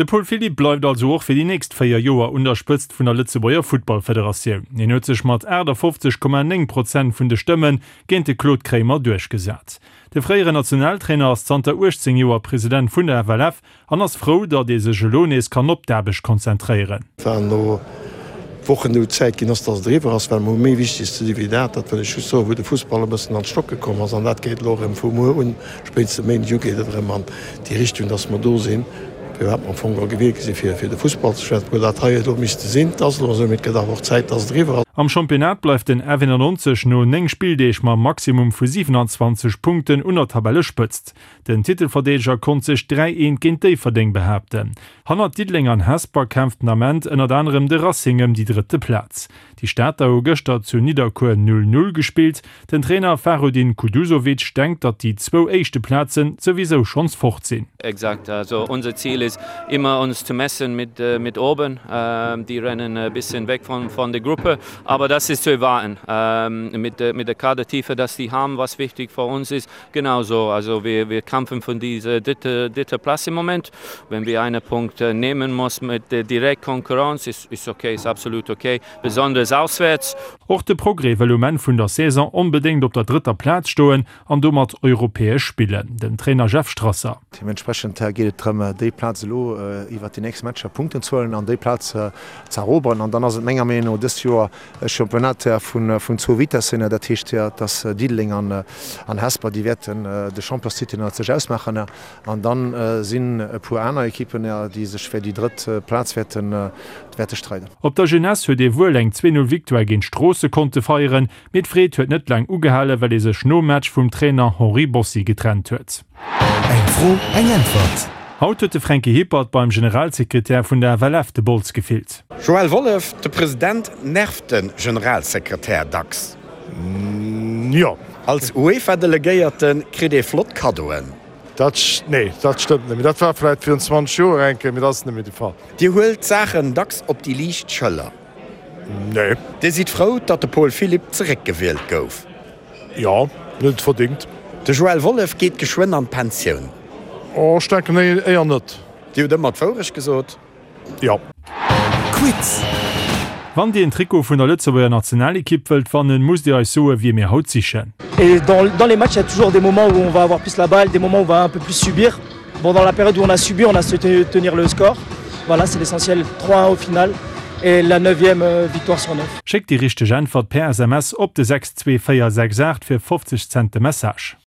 De Paul Philipp bleift also och fir déi nächst 4 Joer un der Spëtzt vun der Lëtzebuerger Futtballfederatioun. Hien huet sech mat 58,9 Prozent vun de Stëmme géint de Claude Kremer duerchgesat. De fréieren Nationaltrainer ass zanter 18 Joer President vun der FLF an ass frou, datt ee sech elo nees kann op d'Aarbecht konzentréieren. War no Wochen elo Zäit ginn ass, datt et eriwwer ass, well mer hu méi Wichteges ze di wéi dat. Dat wëll ech just soen, wou de Fussball e bëssen an d'Stocke komm ass. An dat geet elo erëm vu muer un, spéitstens e Méindeg u geet et erëm an déi Richtung, datt mer do sinn, firwat mer am Fong geholl gewielt gi sinn, fir fir de Fussball ze schwätzen. Obwuel dat hei elo misste sinn. Et ass elo esou, mee et gëtt awer och Zäit, datt et eriwwer ass. Am Championnat bleift den F91 no 9 Spilldeeg mam Maximum vu 27 Punkten un der Tabellespëtzt. Den Titelverdeedeger konnt sech 3 eent géint Déifferdeng behaapten. Hannert Diddeleng an Hesper kämpft den Ament ënnert anerem de Racing ëm déi drëtte Plaz. Déi Stater hu gëschter zu Nidderkuer 0, 0 gespillt. Den Trainer Fahrudin Kuduzovic denkt, datt déi zwou éischte Plazen souwisou schonns fort sinn. Exakt, also unser Ziel ist immer uns zu messen mit mit oben, die rennen e bisschen weg von von der Gruppe, aber das ist zu erwarten mit mit der Kadertiefe, dass die haben, was wichtig für uns ist, Genau so, also wir, wir kämpfen von dieser dritte, dritte Platz im Moment. Wenn wir einen Punkt äh, nehmen muss mit der direkt Konkurrenz, ist, ist okay, ist absolut okay, besonders auswärts. Och de Progrès wëll um Enn vun der Saison onbedéngt op der drëtter Plaz stoen an domat europäesch spillen. Den Trainer Jeff Strasser. Deementsprechend geet et drëm, déi Plaz elo iwwert déi nächst Matcher Punkten ze huelen an déi Plaz ze eroberen. An dann ass et menger Meenung no dëst Joer E Championnat vun zwou Vitessen, dat heescht, dass Diddeleng an Hesper, déi wäerten de Championstitel ënnert sech ausmaachen. An da sinn e puer aner Ekippen, déi sech fir déi drëtt Plaz wäerte streiden. Op der Jeunesse huet ee wuel eng 2, 0 Victoire géint Stroosse konnte feieren, mee d'Freed huet net laang ugehalen, well ee sech nom Match vum Trainer Henri Bossi getrennt huet. Eng Fro, eng Äntwert! Haut huet de Fränki Hippert beim Generalsekretär vun der FLF de Bols gefillt. Joël Wollef, De President nervt de Generalsekretär dacks. Jo. Als UEFA-Delegéierte kritt ee flott Kaddoen. Dat, nee, dat stëmmt net méi. Dat war vläit virun 20 Joer eng Kéier, mee dat ass net méi de Fall. Dir huelt d'Saachen dacks op déi liicht Schëller. Nee. Dir sidd frou, datt de Paul Philipp zeréckgewielt gouf. Jo, en huet et verdingt. De Joël Wollef geet geschwënn an d'Pensioun. Oh, ech denken éier net. Dir hutt ëmmer d'Wourecht gesot. Jo. Quiz! Wann dir en Trikot vun der Lëtzebuerger Nationalekipp wëllt wannen, musst dir eis soen, wie mir haut sichen. Et dans, dans les matchs, il y a toujours des moments où on va avoir plus la balle, des moments où on va un peu plus subir. Bon, dans la période où on a subi, on a su tenir le score. Voilà, c'est l'essentiel 3-1 au final et la neuvième euh, victoire sur 9. Schéckt déi richteg Äntwert per SMS op de 62468 fir 50 Cent de Message.